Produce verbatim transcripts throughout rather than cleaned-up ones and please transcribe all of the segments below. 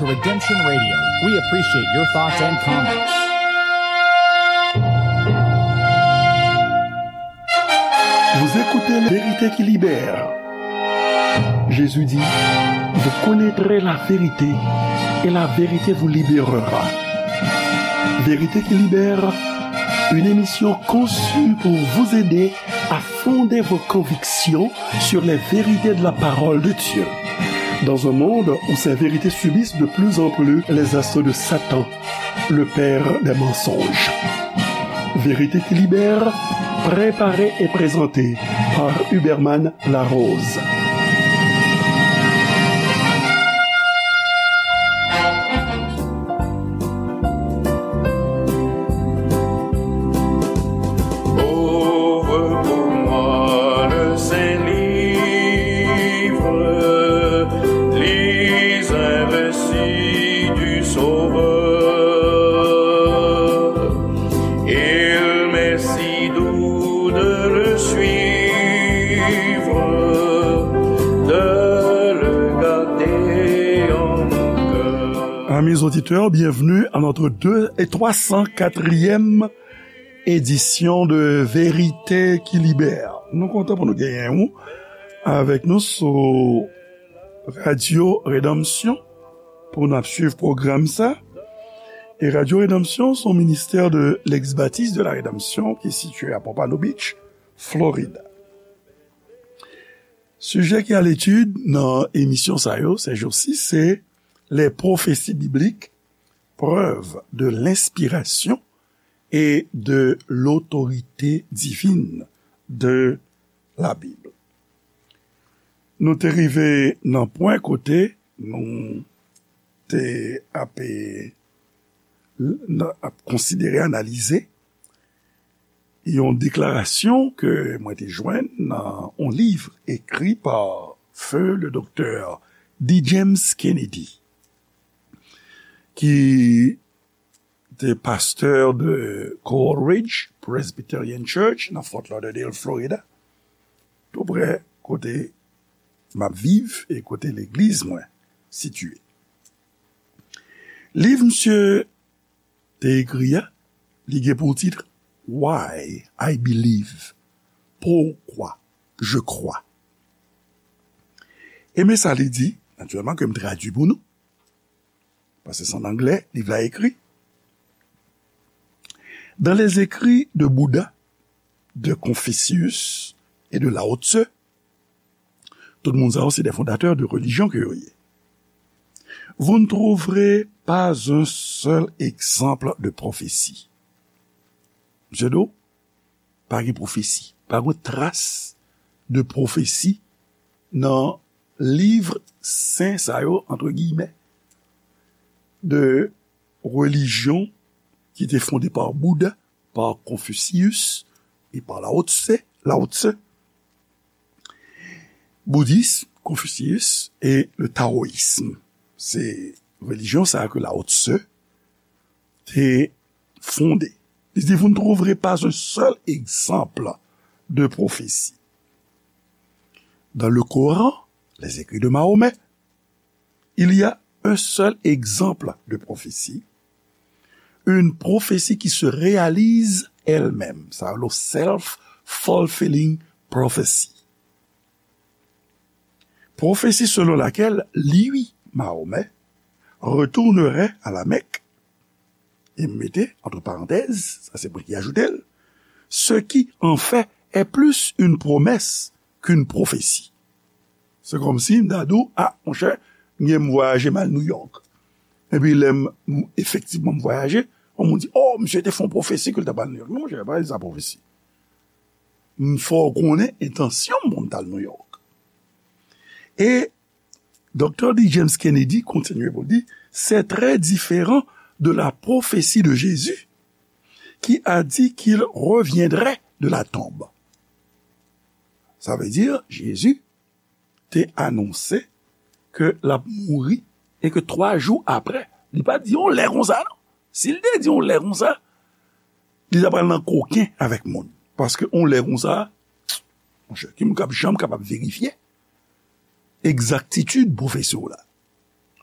To Redemption Radio, we appreciate your thoughts and comments. Vous écoutez La Vérité qui libère. Jésus dit, vous connaîtrez la vérité et la vérité vous libérera. Vérité qui libère, une émission conçue pour vous aider à fonder vos convictions sur les vérités de la parole de Dieu. Dans un monde où ces vérités subissent de plus en plus les assauts de Satan, le père des mensonges. Vérité qui libère, préparée et présentée par Huberman Larose. Ouvre pour moi le saint livre, lis un récit du Sauveur. Il m'est si doux de le suivre, de le garder en mon cœur. Amis auditeurs, bienvenue à notre deux et trois cent quatrième édition de Vérité qui Libère. Nou kontan pou nou genyen ou avèk nou sou Radyo Redanmsyon pou n ap swiv pwogram sa. E Radyo Redanmsyon se yon ministè de l'ex-baptiste de la Rédemption ki sitiye a Pompano Beach, Florida. Sijè ki a letid nan emisyon sa yo, ces jours-ci, se les prophéties bibliques, preuves de l'inspiration et de l'autorité divine de la Bible. Nou te rive nan pwen kote nou te ap, ap konsidere, analize yon deklarasyon ke mwen te jwenn nan yon liv ekri pa feu le doktè D. James Kennedy, ki te pastè de Coral Ridge Presbyterian Church nan Fort Lauderdale, Florida, tou prè kote m ap viv e kote legliz mwen sitiye. Liv misye te ekri a, li gen pou tit Why I Believe, Pourquoi je crois. E men sa li di, natirèlman ke m tradui pou nou, paske se an anglè, liv la ekri. Dans les écrits de Bouddha, de Confucius et de Lao Tse, tout moun sa yo se des fondateurs de religion ke yo ye. Vous ne trouverez pas un seul exemple de prophétie. Misye di w, pa gen pwofesi, pa gen tras de pwofesi nan liv sen sa yo, entre guillemets, de religion ki te fonde pa Bouddha, pa Confucius e pa Lao Tse, Lao Tse. Boudis, Konfisyis e le tawoyism. Se relijyon sa a ke Lao Tse te fonde. Li di, vous ne trouverez pas un seul exemple de prophétie. Dans le Coran, les écrits de Mahomet, il y a un seul exemple de prophétie, une prophétie qui se réalise elle-même. Sa rele self-fulfilling prophecy. Prophétie selon laquelle lui, Mahomet, retournerait à la Mecque, e m mete, entre parenthèses, sa se mwen ki ajoute l, ce qui, en fait, est plus une promesse qu'une prophétie. Se kòmsi m ta di w, a, monchè, m gen m vwayaje m al New York. Epi lè m, m efektivman m vwayaje, yon moun di, oh, misye te fè yon pwofesi ke l t ap al New York. Non, monchè, pa di sa pwofesi. M fè w konnen entansyon m pou m t al New York. E Doktè D. James Kennedy kontinye pou l di, c'est très différent de la prophétie de Jésus, qui a dit qu'il reviendrait de la tombe. Sa vle di, Jezi te anonse ke l ap mouri e ke twa jou apre, li pa di yon lè konsa, non. Si l te di yon lè konsa, li ta pral nan koken avèk moun. Paske yon lè konsa, monchè, ki moun k ap janm kapab verifye egzaktitid pwofesi w la?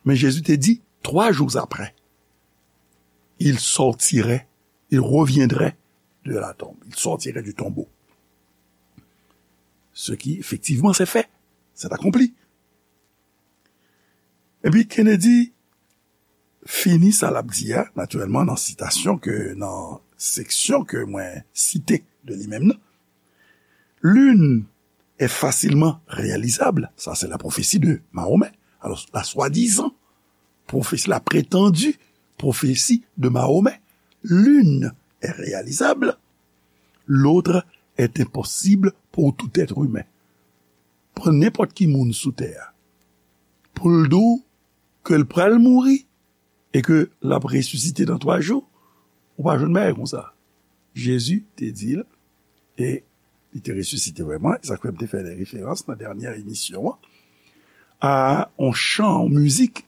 Men Jezi te di, trois jours après, il sortirait, il reviendrait de la tombe. Il sortirait du tombeau. Ce qui, effectivement, s'est fait. C'est accompli. Epi Kennedy fini sa l ap di a, natirèlman, nan sitasyon ke, nan seksyon ke mwen site de li menm nan. L'une est facilement réalisable, ça c'est la prophétie de Mahomet. Alors, la soi-disant prophétie, la prétendue prophétie de Mahomet, l'une est réalisable, l'autre est impossible pour tout être humain. Pran nenpòt ki moun sou tè a, pou l di w ke l pral mouri e ke l ap resisite nan twa jou, ou pa jwenn bagay konsa. Jezi te di l, e li te resisite vrèman, e sa k fè m te fè de referans nan dènyè emisyon an, a yon chan, yon mizik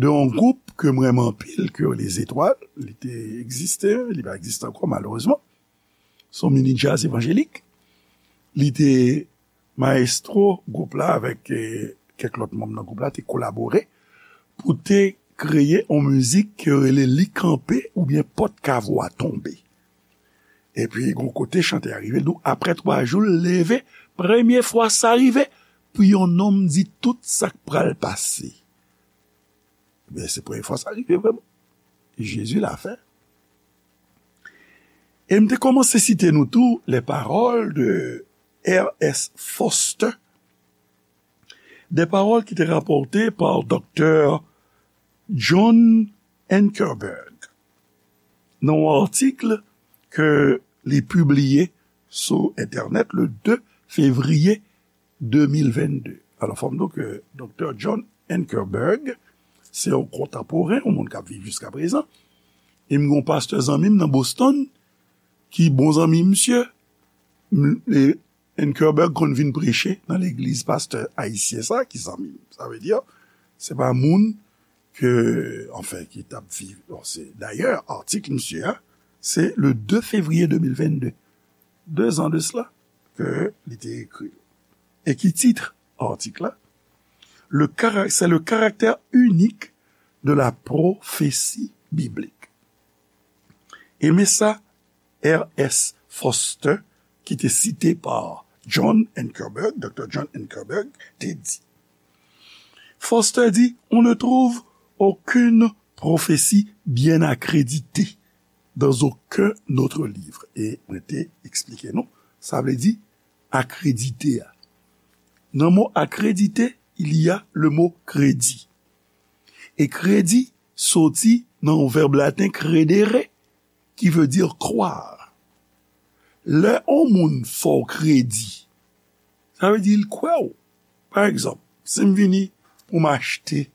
de yon gwoup ke m renmen anpil, ke Les Étoiles, li te egziste, li pa egziste ankò malerezman. Se yon mini djaz evanjelik. Li te mayestwo gwoup la avèk, eh, kèk lòt manm nan gwoup la te kolabore pou te kreye yon mizik ke yo rele Li Kanpe oubyen Pòt Kavo a Tonbe. Epi, gon kote chantè a rive, l di w, apre twa jou, l leve, premye fwa sa rive, pou yon nonm di tout sa k pral pase. Men se premye fwa sa rive vrèman. Jezi la fè. E m te kòmanse site nou tou les paroles de R S Foster, des paroles qui étaient rapportées par Docteur John Ankerberg nan yon atik ke li pibliye sou entènèt le de fevriye de mil vennde. Alò, fò m di w ke Doktè John Ankerberg se yon kontanporen, yon moun k ap viv jiska prezan. E m gen yon pastè zanmi m nan Boston ki bon zanmi misye. M, e Ankerberg konn vin preche nan legliz pastè ayisyen sa ki zanmi m. Sa vle di, se pa moun ke, anfen, ki t ap viv. Bon, se, dayè, atik misye a, se le de fevriye de mil vennde. De zan de sela ke li te ekri l. E ki tit atik la? Le cara-, c'est le caractère unique de la prophétie biblique. E men sa R S Foster, ki te site pa John Ankerberg, Doktè John Ankerberg, te di. Foster dit, on ne trouve aucune prophétie bien accréditée dans aucun autre livre. E mwen te eksplike nou, sa vle di akredite a. Nan mo akredite, il y a le mot kredi. E kredi soti nan yon vèb laten credere, qui veut dire croire. Lè yon moun fè w kredi, sa vle di l kwè w. Pa egzanp, si m vini pou m achte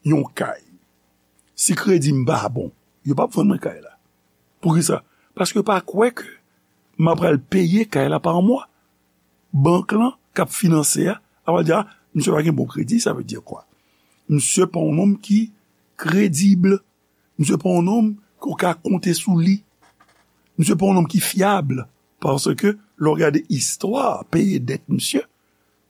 yon kay, si kredi m pa bon, yo p ap vann mwen kay la. Poukisa? Paske yo pa kwè ke m ap pral peye kay la pa mwa. Bank lan k ap finanse a, a va di, a, misye pa gen bon kredi, sa vle di kwa? Misye pa yon nonm ki kredib. Misye pa yon nonm ke w ka konte sou li. Misye pa yon nonm ki fyab. Paske, lè w gade istwa peye dèt misye,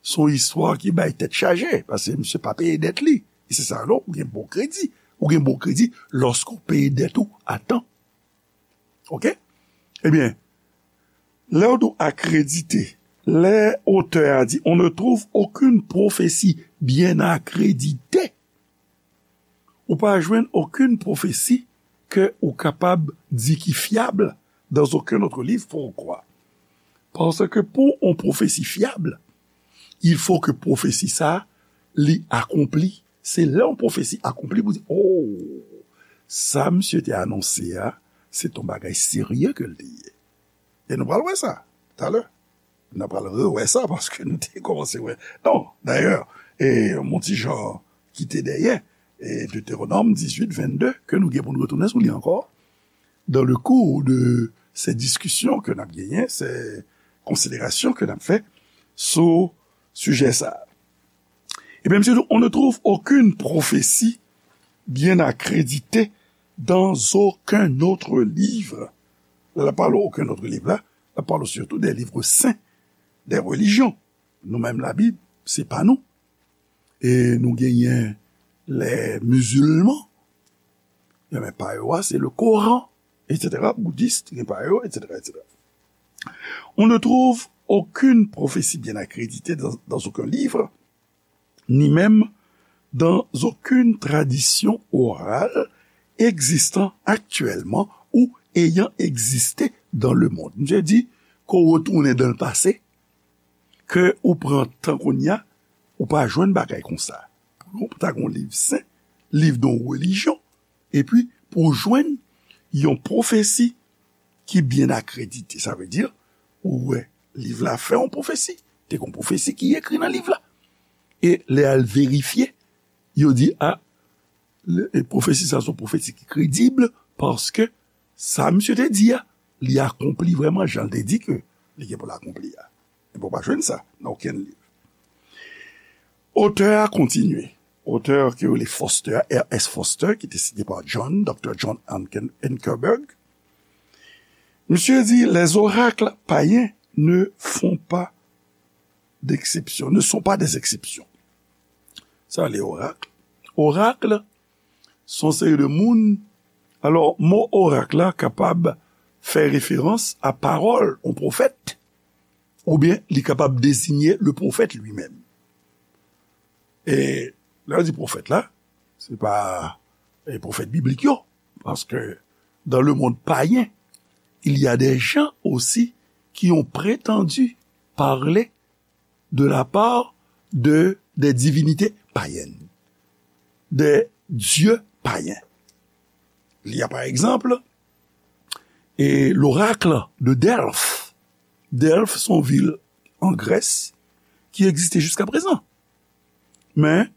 se yon istwa ki bay tèt chaje, paske misye pa peye dèt li. E se sa, non, ou gen bon kredi. Ou gen bon kredi lòske w peye dèt ou a tan. Oke? Ebyen, lè w di w akredite, lè otè a di, on ne trouve aucune prophétie bien accréditée, ou pa jwenn okenn pwofesi ke ou kapab di ki fyab dans aucun autre livre. Poukwa? Paske pou yon pwofesi fyab, il faut que pwofesi sa a, li akonpli. Se lè yon pwofesi akonpli pou di, oh, sa misye te anonse a, se t yon bagay serye ke l te ye. E nou pral wè sa talè. N ap pral rewè sa paske nou te kòmanse wè. Non, dayè, e, yon ti jan kite dèyè, e, Deutéronome dix-huit, vingt-deux, ke nou gen pou n retounen sou li ankò, dans le cours de ces discussions ke n ap genyen, ces considérations ke n ap fè sou sijè sa a. Ebyen, misye di, on ne trouve aucune prophétie bien accréditée dans aucun autre livre. Lè l ap pale okenn lòt liv la, l ap pale sitou de liv sen, de relijyon. Nou menm, Labib, se pa nou. E nou genyen les musulmans, gen pa yo a, se le Coran, et cetera, bouddhiste, gen pa yo, et cetera, et cetera. On ne trouve aucune prophétie bien accréditée dans, dans aucun livre, ni même dans aucune tradition orale existant actuellement ou ayant existé dans le monde. Misye di, ke w retounen dans le passé, ke ou pran tan kounye a, ou pa jwenn bagay konsa. Pou nou, ta gon liv sen, liv de yon relijyon, epi pou w jwenn yon pwofesi ki byen akredite. Sa vle di, ou wè, liv la fè yon pwofesi. Te gon pwofesi ki ekri nan liv la. E lè al verifye, yo di, a, le- e pwofesi sa se yon pwofesi ki kredib, paske sa misye te di a, li akonpli vrèman jan l te di ke li gen pou l akonpli a. Epi w pa jwenn sa nan okenn liv. Otè a kontinye. Otè ki rele Foster, R S Foster, ki te site pa John, Docteur John Anken- Ankerberg. Misye di, les oracles païens ne font pas d'exception, ne sont pas des exceptions. Sa le orak. Orak, se yon seri de moun. Alò, mo orak la kapab fè referans a pawòl yon pwofèt, oubyen li kapab deziye le pwofèt li menm. E lè yo di pwofèt la, se pa e pwofèt biblik yo, paske dans le monde païen, il y a des gens aussi qui ont prétendu parler de la part de des divinités païennes, des dieux païens. Il y a par exemple e l'oracle de Delphes. Delphes se yon vil an Grès ki egziste jiska prezan. Men,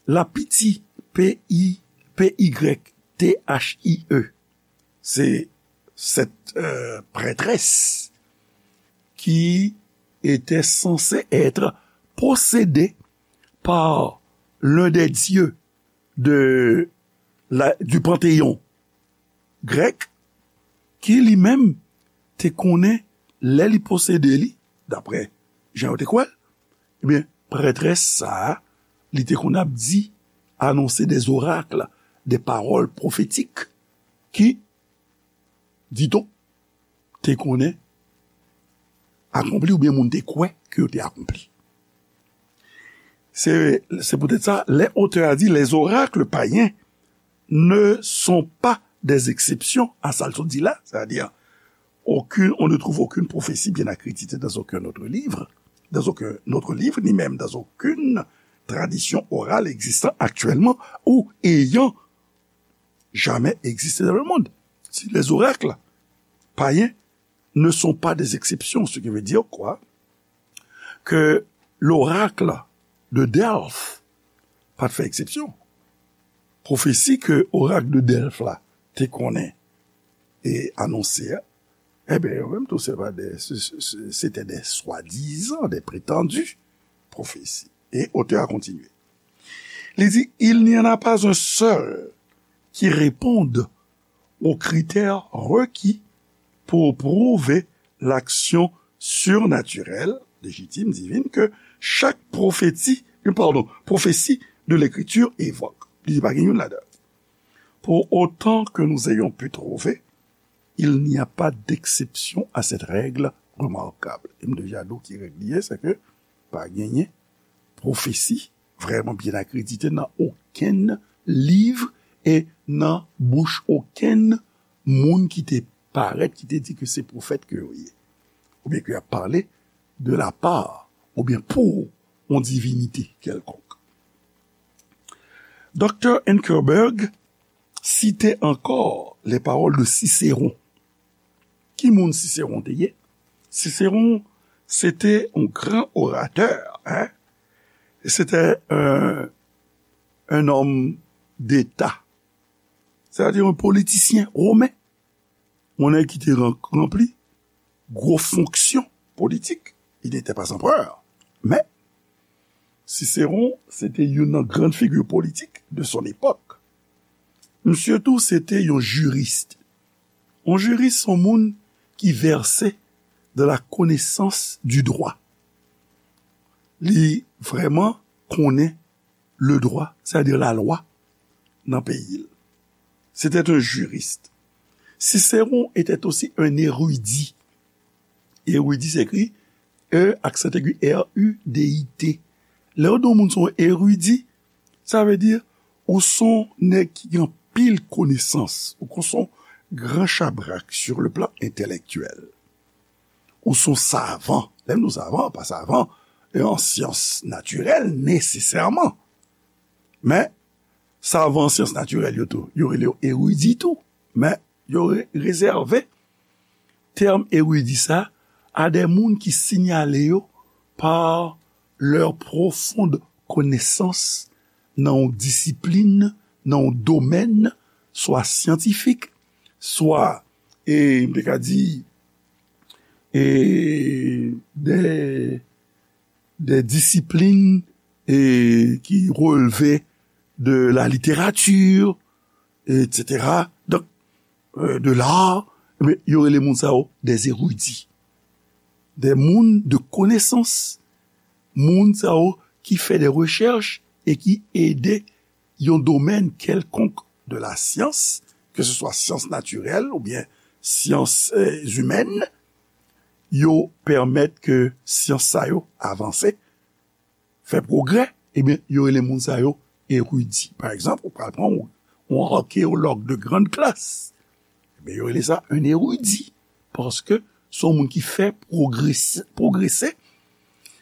la Pythie, P I, P Y T H I E, se cette euh, prêtresse qui était censée être possédée par l'un des dieux de la, du panthéon grec, ki li menm te konnen lè li posede li, daprè jan yo te kwè l, ebyen, prètrès sa a, li te konn ap di, anonse des oracles, des paroles prophétiques, ki, dit-on, te konnen akonpli oubyen moun te kwè ke yo te akonpli. Se, se poutèt sa, lè otè a di, les oracles païens ne sont pas des exceptions à sa l sot di la, c'est-à-dire, aucune, on ne trouve aucune prophétie bien accréditée dans aucun autre livre, dans aucun autre livre, ni même dans aucune tradition orale existant actuellement ou ayant jamais existé dans le monde. Si les oracles païens ne sont pas des exceptions, ce qui veut dire quoi? Que l'oracle de Delphes pa t fè eksepsyon. Pwofesi ke orak de Delphes la te konnen e anonse a, ebyen, yo menm tou, se pa de, se, se, se, se te de swadizan, de pretandi pwofesi. E otè a kontinye. Li di, il n'y en a pas un seul qui réponde aux critères requis pour prouver l'action surnaturelle, légitime, divine, que chaque prophétie, euh, pardon, prophétie de l'Écriture évoque. Li di pa gen youn ladan. Pour autant que nous ayons pu trouver, il n'y a pas d'exception à cette règle remarquable. E m deja di w ki règ li ye, se ke pa genyen pwofesi vrèman byen akredite nan okenn liv e nan bouch okenn moun ki te parèt, ki te di ke se pwofèt ke yo ye, oubyen ke y ap pale de la part, oubyen pou yon divinite kèlkonk. Doktè Ankerberg site ankò les paroles de Cicéron. Ki moun Cicéron te ye? Cicéron, se te yon gran oratè, hein? Se te un, un homme d'État, c'est-à-dire un politicien romain. Yon nèg ki te ran- ranpli gwo fonksyon politik. Il n'était pas empereur, men Cicéron, se te youn nan gran figi politik de son époque. Misye tou, se te yon jiris. Yon jiris, se yon moun ki vèse dans la connaissance du droit. Li vrèman konnen le droit, c'est-à-dire la loi, nan peyi l. C'était un juriste. Cicéron était aussi un érudit. Érudit se ekri E aksan egi R U D I T. Lè yo di yon moun se yon eridi, sa vle di ou se yon nèg ki gen anpil konesans, ou se yon gran chabrak sur le plan intellectuel. Ou se yon savan. Lè m di w savan, pa savan e an syans natirèl nesesèman. Men, savan an syans natirèl yo tou, yo rele yo eridi tou. Men, yo re- rezève tèm eridi sa a de moun ki siyale yo pa leur profonde connaissance nan yon disiplin, nan yon domèn, swa syantifik, swa, e, m te ka di, e, de, de disiplin, e, ki relve de la littérature, et cetera. Donk, euh, de l'art, men, yo rele moun sa yo des érudits. Des moun de konesans. Moun sa yo ki fè de rechèch e ki ede yon domèn kèlkonk de la syans, ke se swa syans natirèl oubyen syans, euh, imèn, yo pèmèt ke syans sa yo avanse, fè pwogrè, ebyen, yo rele moun sa yo eridi. Pa egzanp, ou pral pran yon, yon arkéologue de grande classe, ebyen, yo rele sa un érudit, paske se yon moun ki fè pwogrese, pwogrese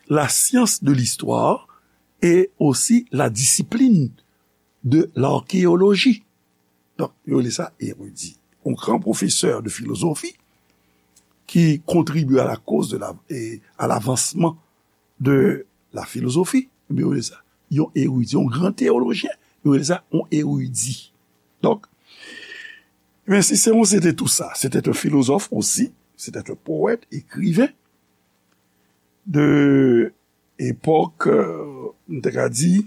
la science de l'histoire et aussi la discipline de l'archéologie. Donk, yo rele sa eridi. Un grand professeur de philosophie qui contribue à la cause de la, et à l'avancement de la philosophie, ebyen, yo rele sa yon eridi, yon gran teyolojyen, yo rele sa yon eridi. Donk, men Cicéron, c'était tout ça. C'était un philosophe aussi, c'était un poète, écrivain de epòk, euh, m te ka di,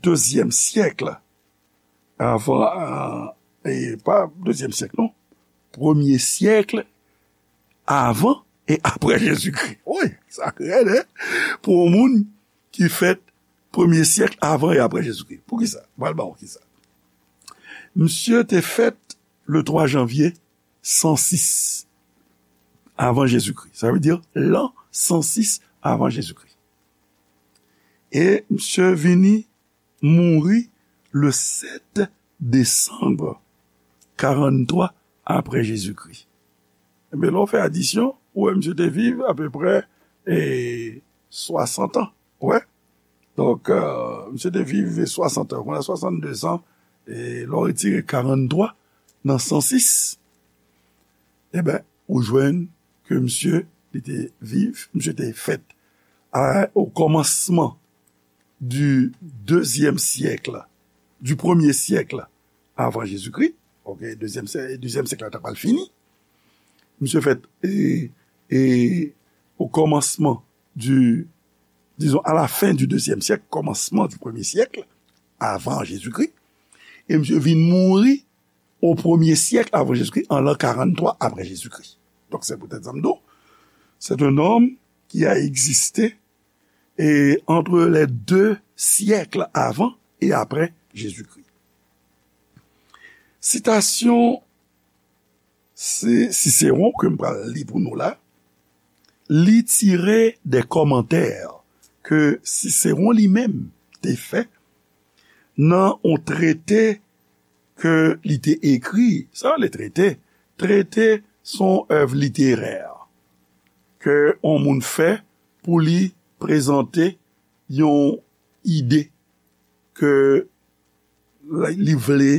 dezyèm syèk avan, euh, e pa dezyèm syèk, non, premye syèk avan e apre Jezikri. Wi, sa rèd, en? Pou yon moun ki fèt premye syèk avan e apre Jezikri. Poukisa? M pral ba w kisa. Misye te fèt le twa janvye san sis avan Jezikri. Sa vle di lan san sis avan Jezikri. E misye vini mouri le sèt desanm karannntwa apre Jezikri. Ebyen, lè w fè adisyon, ou wè misye te viv apeprè, e, swasant an. Ou wè? Donk, euh, misye te viv swasant an. Kounye a swasanndezan, e lè w retire karannntwa nan san sis, ebyen, ou jwenn ke misye, li te viv, misye te fèt a, o kòmansman du deuxième siècle, du premier siècle avant Jésus-Christ. Ok, dezyèm syè-, dezyèm syèk la ta pral fini. Misye fèt, e, e, o kòmansman du, disons, à la fin du deuxième siècle, kòmansman du premier siècle avant Jésus-Christ. E misye vin mouri o premye syèk avan Jezikri, an lan karannntwa apre Jezikri. Donk, se poutèt sa m di w, c'est un homme qui a existé, e, entre les deux siècles avant et après Jésus-Christ. Sitasyon Cicéron ke m pral li pou nou la, li tire de kòmantè ke Cicéron li menm te fè nan yon trete ke li te ekri. Sa rele trete. Trete se yon èv literè ke yon moun fè pou li prezante yon ide ke li vle,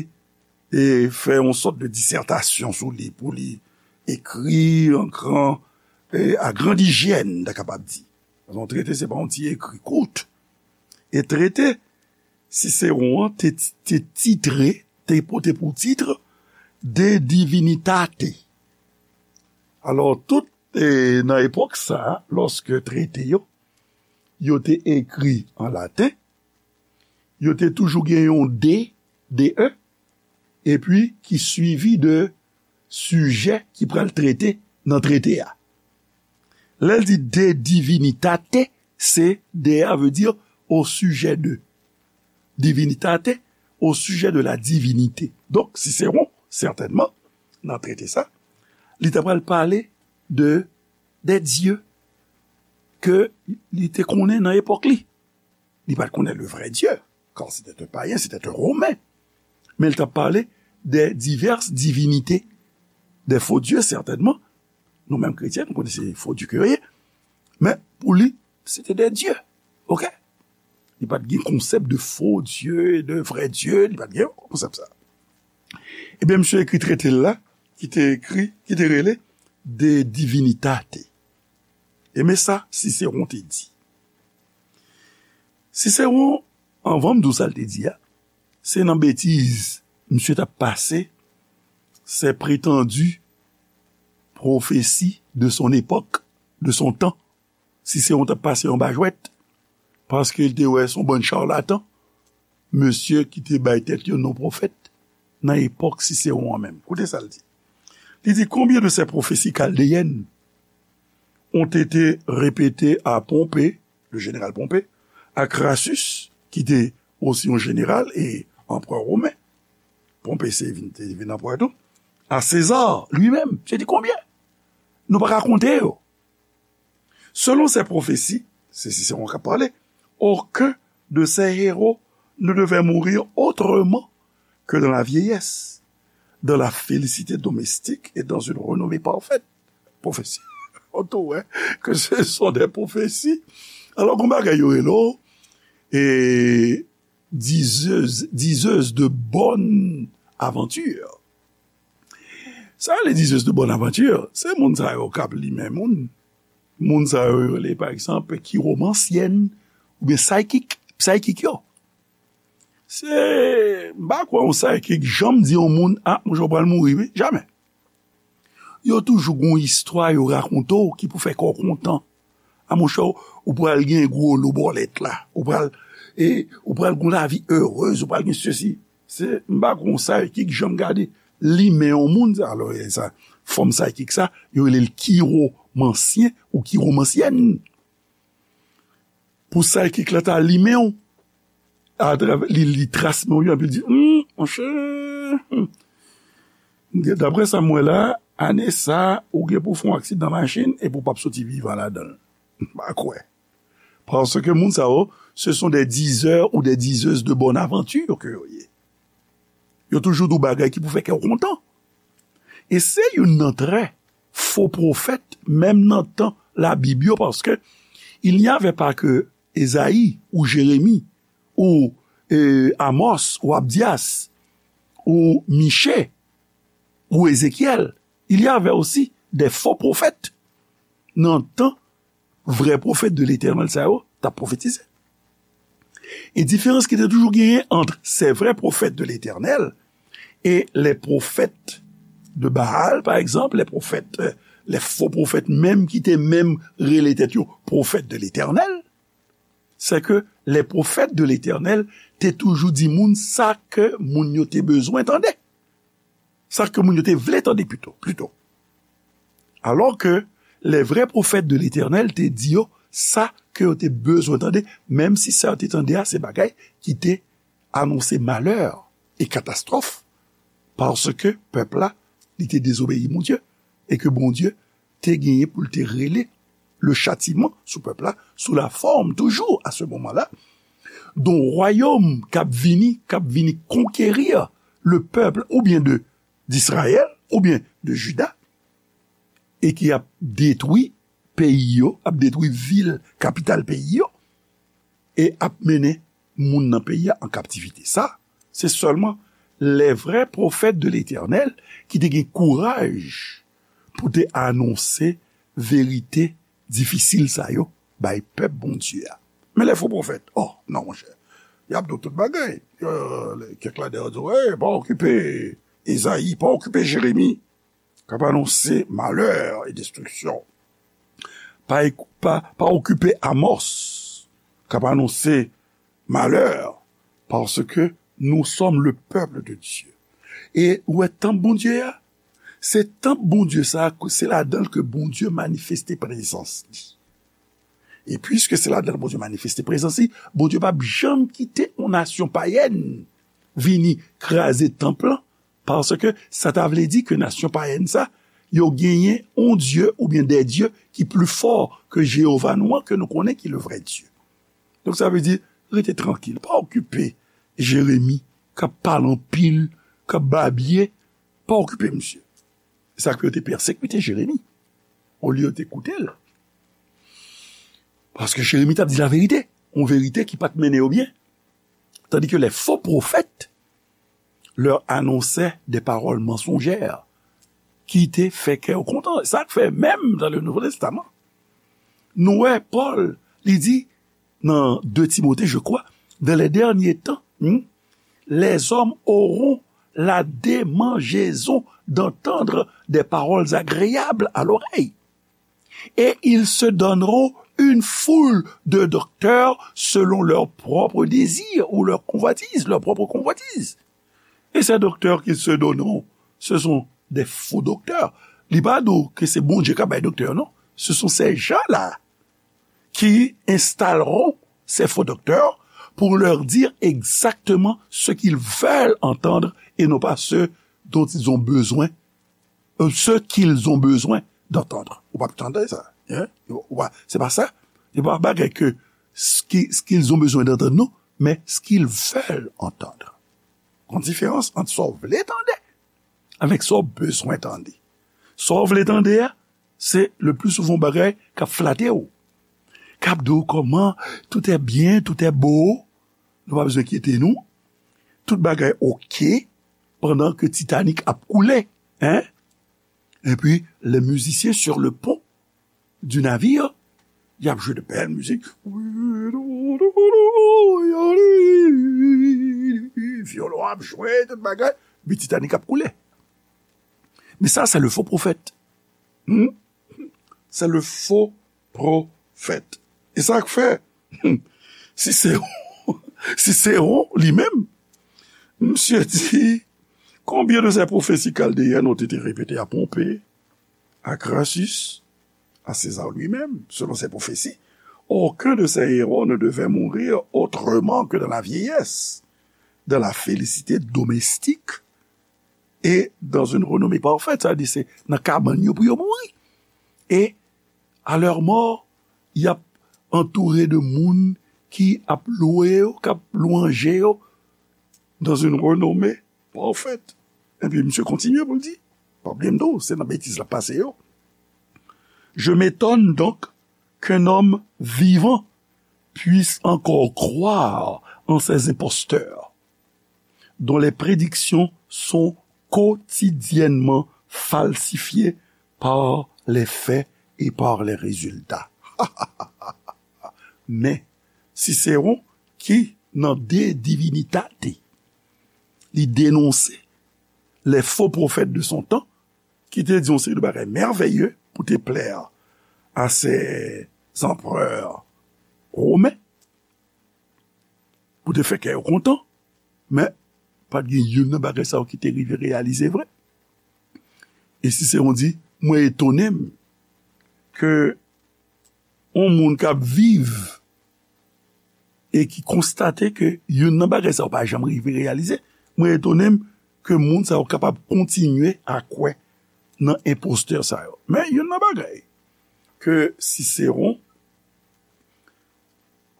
e, fè yon sòt de disètasyon sou li, pou li ekri an gran, e, a grande hyène, ta kapab di. Paske yon trete, se pa yon ti ekri kout. E trete Cicéron an te, te titre, te pote pou tit De Divinitate. Alò, tout, e, nan epòk sa a, lòske trete yo, yo te ekri an laten, yo te toujou gen yon D, D E, epi ki swivi de sijè ki pral trete nan trete a. Lè l di De Divinitate, se D A vle di au sujet de. Divinitate, au sujet de la divinité. Donk, Sisewon, sètènman, nan trete sa, li ta pral pale de, de dye ke li te konnen nan epòk li. Li pa t konnen le vrai Dieu, car c'était un païen, c'était un Romain. Men li t ap pale de diverses divinités, de faux dieux, sètènman. Nou menm kretyen, nou konnen se fo dye ke yo ye. Men, pou li, se te de dye. Oke? Li pa t gen konsèp de faux dieu, de vrai Dieu, li pa t gen konsèp sa. Ebyen, misye ekri trete l la, ki te ekri, ki te rele De Divinitate. E men sa Sisewon te di. Sisewon, anvan m di w sa l te di a, se nan betiz misye t ap pase, ces prétendues prophéties de son époque, de son temps. Sisewon t ap pase anba jwèt, paske l te wè se yon bann chalatan, mesye ki te bay tèt yo non pwofèt nan epòk Sisewon an menm. Koute sa l di. Li di, combien de ces prophéties chaldéennes ont été répétées à Pompée, le général Pompée, à Crassus, ki te osi yon jeneral e anperè women. Pompée se vin, te vin anperè tou. À César lui-même. Je dis combien? Nou pa ka konte yo. Selon ces prophéties, se Sisewon k ap pale, aucun de ces héros ne devait mourir autrement que dans la vieillesse, dans la félicité domestique et dans une renommée parfaite. Prophétie. On te voit que ce sont des prophéties. Alò, gon bagay yo rele w, e, dizeuse, dizeuse de bonne aventure. Sa, les diseuses de bonne aventure, se moun sa yo k ap limen moun. Moun sa yo, yo rele, pa egzanp, kiwomansyèn oubyen psychic, psychic yo. Se, m pa kwè yon psychic janm di yon moun, a, monchè, w pral mouri, wi. Jamè. Yo toujou gon istwa yo rakonte w ki pou fè kè w kontan. A, monchè, ou pral gen gwo lo bòlèt la. Ou pral, e, ou pral gon lavi erez, ou pral gen sesi. Se, m pa gon psychic janm gade limen yon moun, sa, alò, e sa, fòm psychic sa, yo rele l kiwomansyen ou kiwomansyèn. Pou psychic la ta limen w, atravè, li, li tras men w yo, epi l di, hmm, monchè, hmm. Daprè sa m wè la, ane sa, ou gen pou fè yon aksidan machin, epi w p ap soti vivan ladan l. M pa kwè. Paske moun sa yo, ce sont des diseurs ou des diseuses de bonne aventure ke yo ye. Yo toujou di w bagay ki pou fè kè w kontan. E se youn nan trè fo pwofèt, menm nan tan Labib yo, paske il n'y avait pas que Ezayi ou Jeremi ou, e, Amos ou Abdyas ou Miche ou Ezekyèl. Il y avait aussi des faux prophètes nan tan vrè pwofèt de Letènèl sa yo t ap pwofetize. E diferans ki te toujou genyen ant ces vrais prophètes de l'Éternel et les prophètes de Baal, pa egzanp, les prophètes, euh, les faux prophètes menm ki te menm rele tèt yo pwofèt de Letènèl, c'est que les prophètes de l'Éternel te toujou di moun sa ke moun yo te bezwen tande. Sa ke moun yo te vle tande pito, plito. Alò ke les vrais prophètes de l'Éternel te di yo sa ke yo te bezwen tande, menm si sa yo te tande a se bagay ki te anonse malè e katastwòf, paske pèp la, li te dezobeyi Bondye, e ke Bondye te genyen pou l te rele le châtiment sou pèp la, sous la forme, toujours à ce moment-là, d'un royaume k ap vini, k ap vini konkeri le pèp, oubyen de, d'Israël, oubyen de Juda, e ki ap detwi peyi yo, ap detwi vil, kapital peyi yo, e ap mennen moun nan peyi a an kaptivite. Sa, se sèlman les vrais prophètes de l'Éternel ki te gen kouraj pou te anonse verite difisil sa yo bay pèp Bondye a. Men les faux prophètes, oh, non, monchè. Y ap di w tout bagay. Euh, kèk ladan yo di w, hey, pa okipe Ezayi, pa okipe Jeremi, k ap anonse malè e destriksyon. Pa, pa, pa okipe Amos, k ap anonse malè, paske nous sommes le peuple de Dieu. E ou wè tanp Bondye a, se tanp Bondye sa a, se ladan l ke Bondye manifeste prezans li. E piske se ladan l Bondye manifeste prezans li, Bondye p ap janm kite yon nasyon payèn vini kraze tanp lan, paske sa ta vle di ke nasyon payèn sa, yo genyen yon Dye oubyen de dye ki pli fò ke Jewova nou an, ke nou konnen ki le vrè Dye. Donk, sa vle di, rete trankil, pa okipe Jeremi k ap pale anpil, k ap babye, pa okipe misye. Se sa k fè yo te pèsekite Jeremi, olye yo te koute l. Paske Jeremi t ap di laverite, yon verite ki pa t mennen yo byen. Tandis que les faux prophètes leur annonçaient des paroles mensongères ki te fè kè yo kontan. Sa k fè, menm dans le Nouveau Testament, nou wè Pòl, li di, nan de Timote, je crois, dans les derniers temps, hmm, les hommes auront la démangeaison d'entendre des paroles agréables à l'oreille. Et ils se donneront une foule de docteurs selon leur propre désir ou leur convoitise, leur propre convoitise. Et ces docteurs qu'ils se donneront, ce sont des faux docteurs. Li pa di w ke se Bondye k ap bay doktè, non. Ce sont ces gens-là qui installeront ces faux docteurs pour leur dire exactement ce qu'ils veulent entendre et non pas ce dont ils ont besoin, euh, ce qu'ils ont besoin d'entendre. Ou pa tande sa, hein? Ou pa, c'est pas ça. Se pa bagay ke ce qui, ce qu'ils ont besoin d'entendre, non, mais ce qu'ils veulent entendre. Gon diferans ant sa w vle tande avèk sa w bezwen tande. Sa w vle tande a, se le plus souvent bagay k ap flate w, k ap di w kòman tout est bien, tout est beau, nou pa bezwen enkyete nou, tout bagay oke, pandan ke Titanic ap koule, hein? Epi, les musiciens sur le pont du navire, y ap jwe de bèl mizik. Vyolon ap jwe, tout bagay. Epi Titanic ap koule. Men sa, se le faux prophète. Hmm? Se le faux prophète. E sa k fè, Cicéron, Cicéron, li menm, misye di, combien de ces prophéties chaldéennes ont été répétées à Pompée, à Crassus, à César lui-même, selon ces prophéties, aucun de ces héros ne devait mourir autrement que dans la vieillesse, dans la félicité domestique et dans une renommée parfaite. Sa vle di se nan kabann yo pou yo mouri. Et à leur mort, y ap antoure de moun ki ap lwe yo, k ap lwanje yo, dans une renommée parfaite. Epi misye kontinye pou l di, pa bliye m tou, se nan betiz l ap pase yo. Je m'étonne donc qu'un homme vivant puisse encore croire en ces imposteurs dont les prédictions sont quotidiennement falsifiées par les faits et par les résultats. Men, Cicéron, ki nan De Divinitate, li denonse les faux prophètes de son temps, ki te di yon seri de bagay mèvèye pou te plè a se anperè women, pou te fè kè yo kontan, men pa t gen youn nan bagay sa yo ki te rive reyalize vre. E Cicéron di, mwen etone m ke yon moun k ap viv e ki konstate ke youn nan bagay sa yo pa janm rive reyalize, mwen etone m ke moun sa yo kapab kontinye a kwè nan enpostè sa yo. Men youn nan bagay ke Cicéron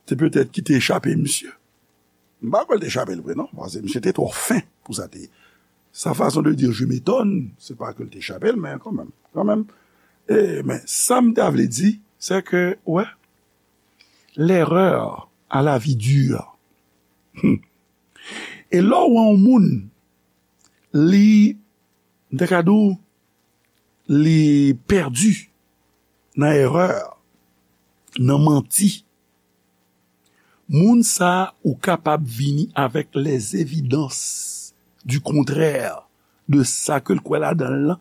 te petèt ki te echape misye. M pa kwè l te echape l vre, non, paske misye te twò fen pou sa te ye. Sa fason de dire je m'étonne, se pa ke l te echape l, men kanmenm, kanmenm. E, men sa m ta vle di, se ke, wè, l'erreur a la vie dure. Hmm. E lè w wè yon moun, li, m te ka di w, li pèdi nan erè, nan manti. Moun sa a, ou kapab vini avèk les évidences du contraire de sa ke l kwè ladan l lan.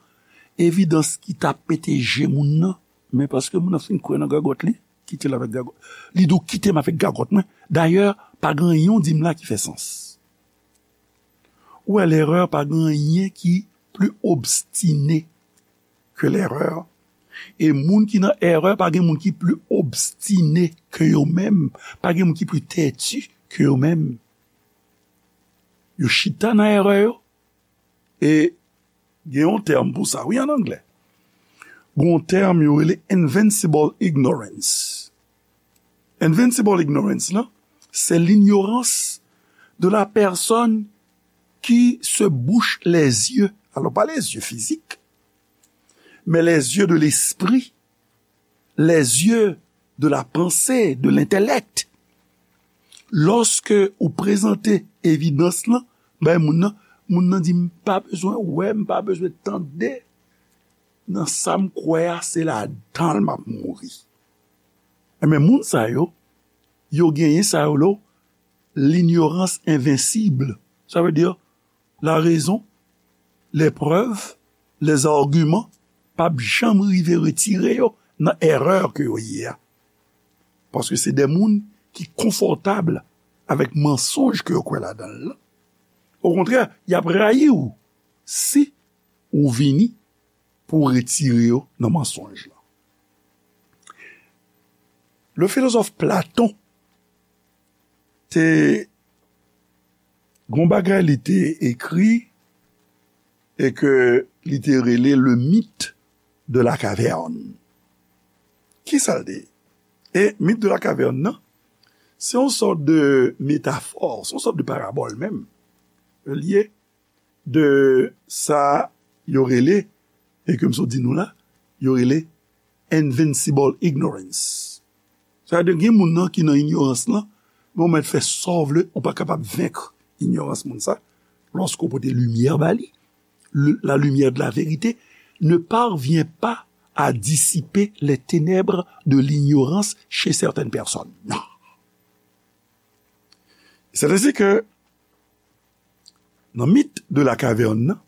Evidans ki ta pete je moun nan, men paske moun nan fin kwè nan gagòt li, kite l avèk gagòt. Li di w, kite m avèk gagòt mwen. Dayè, pa gen anyen w di m la ki fè sans. Ou wè, lerè pa gen anyen ki pli obstine ke lerè, E moun ki nan erè, pa gen moun ki pli obstine ke yo menm, pa gen moun ki pli tèti ke yo menm. Yo chita nan erè yo, e gen yon tèm pou sa, wi, an anglè. Gen yon tèm yo rele invincible ignorance. Invincible ignorance, lan, c'est l'ignorance de la personne qui se bouche les yeux. Alors, pas les yeux physiques, mais les yeux de l'esprit, les yeux de la pensée, de l'intellect. Lòske ou prezante evidans lan bay moun nan, moun nan di, "M pa bezwen wè, m pa bezwen tande. Nan sa m kwè a, se ladan l m ap mouri." Enben, moun sa yo, yo genyen sa yo lo, l'ignorance invincible. Sa vle di, la raison, les preuves, les arguments p ap janm rive retire yo nan erè ke yo ye a. Paske se de moun ki konfòtab avèk mansonj ke yo kwè ladan l lan. Okontrè, y ap rayi w si ou vini pou w retire yo nan mansonj lan. Le philosophe Platon te gon bagay li te ekri e ke li te rele le mythe de la caverne. Kisa l te ye? E mythe de la caverne nan, se yon sòt de metafò, se yon sòt de parabòl menm. Li ye de sa yo rele, e ke m sot di nou la, yo rele invincible ignorance. Sa vle di gen moun nan ki nan inyorans lan, men ou mèt fè sa w vle, ou pa kapab venk inyorans moun sa, lòske w pote limyè ba li. Le- la lumière de la vérité ne parvient pas à dissiper les ténèbres de l'ignorance chez certaines personnes. Non. C'est ainsi que nan mit de la kavèn nan,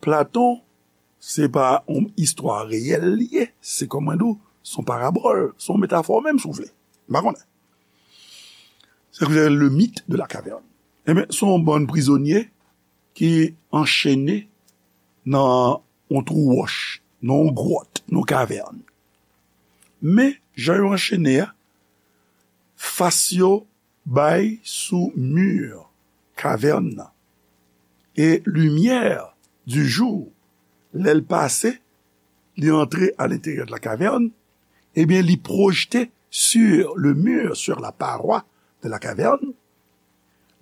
Platon, se pa yon istwa reyèl li ye, se kòman di w, se yon parabòl, se yon metafò menm si w vle. M pa konnen. Se ki le mythe de la caverne. Ebyen, se yon bann prizonye ki anchene nan yon twou wòch, nan yon gwòt, nan yon kavèn. Men, jan yo anchene a, fas yo bay sou mi kavèn nan. E limyè du jour, lè l pase, li antre à l'intérieur de la caverne, ebyen, li pwojte sur le mur, sur la paroi de la caverne,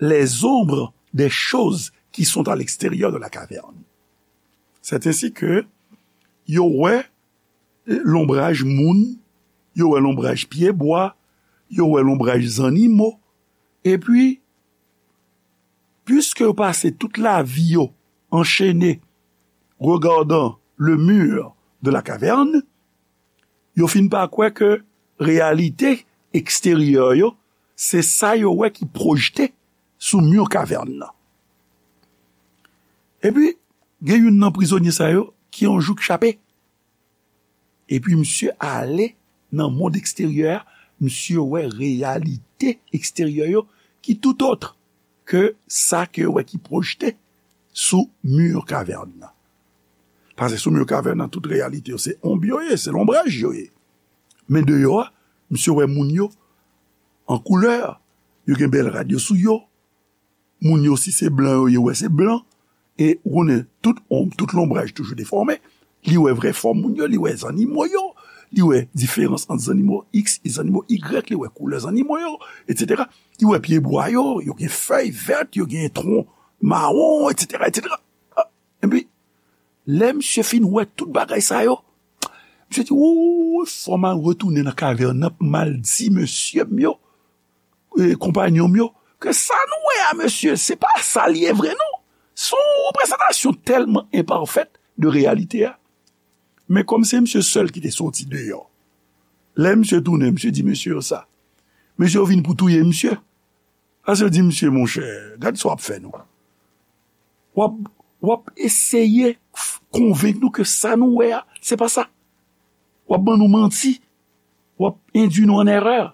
les ombres des choses qui sont à l'extérieur de la caverne. C'est ainsi que yo wè lonbraj moun, yo wè lonbraj pyebwa, yo wè lonbraj zannimo, epi, piske yo pase tout lavi yo anchene, regardant le mur de la caverne, yo fin pa kwè ke reyalite eksteryè yo, se sa yo wè ki pwojte sou mi kavèn nan. Epi, gen youn nan prizonye sa yo ki yon jou k chape. Epi misye ale nan mond eksteryè a, misye wè reyalite eksteryè yo ki tout autre ke sa ke yo wè ki pwojte sou mi kavèn nan. Paske sou mi kavèn nan, tout reyalite yo, se onb yo ye, se lonbraj yo ye. Men deyò a, misye wè moun yo an koulè, yo gen bèl rad yo sou yo, moun yo, si se blan yo ye, wè se blan. E ou konnen, tout onb, tout lonbraj toujou defòme. Li wè vrè fòm moun yo, li wè zannimo yo, li wè diferans ant zannimo X e zannimo Y, li wè koulè zannimo yo, etsetera. Li wè pyebwa yo, yo gen fèy vèt, yo gen twon mawon, etsetera, etsetera. Ah, epi, lè misye fin wè tout bagay sa yo, misye di, "Wouy, fò m al retounen nan kavèn nan pou m al di mesye m yo, e, konpanyon m yo, ke sa nou wè a, mesye, se pa sa l ye vre, non. Se yon reprezantasyon tèlman enpafèt de reyalite a." Men kòm se misye sèl ki te soti deyò, lè misye tounen, misye di mesye yo sa. Mesye yo vin pou touye misye. Paske yo di, "Mesye, monchè, gad sa w ap fè nou. W ap, w ap eseye f- konvenk nou ke sa nou wè a, se pa sa. W ap ban nou manti. W ap endui nou an erè."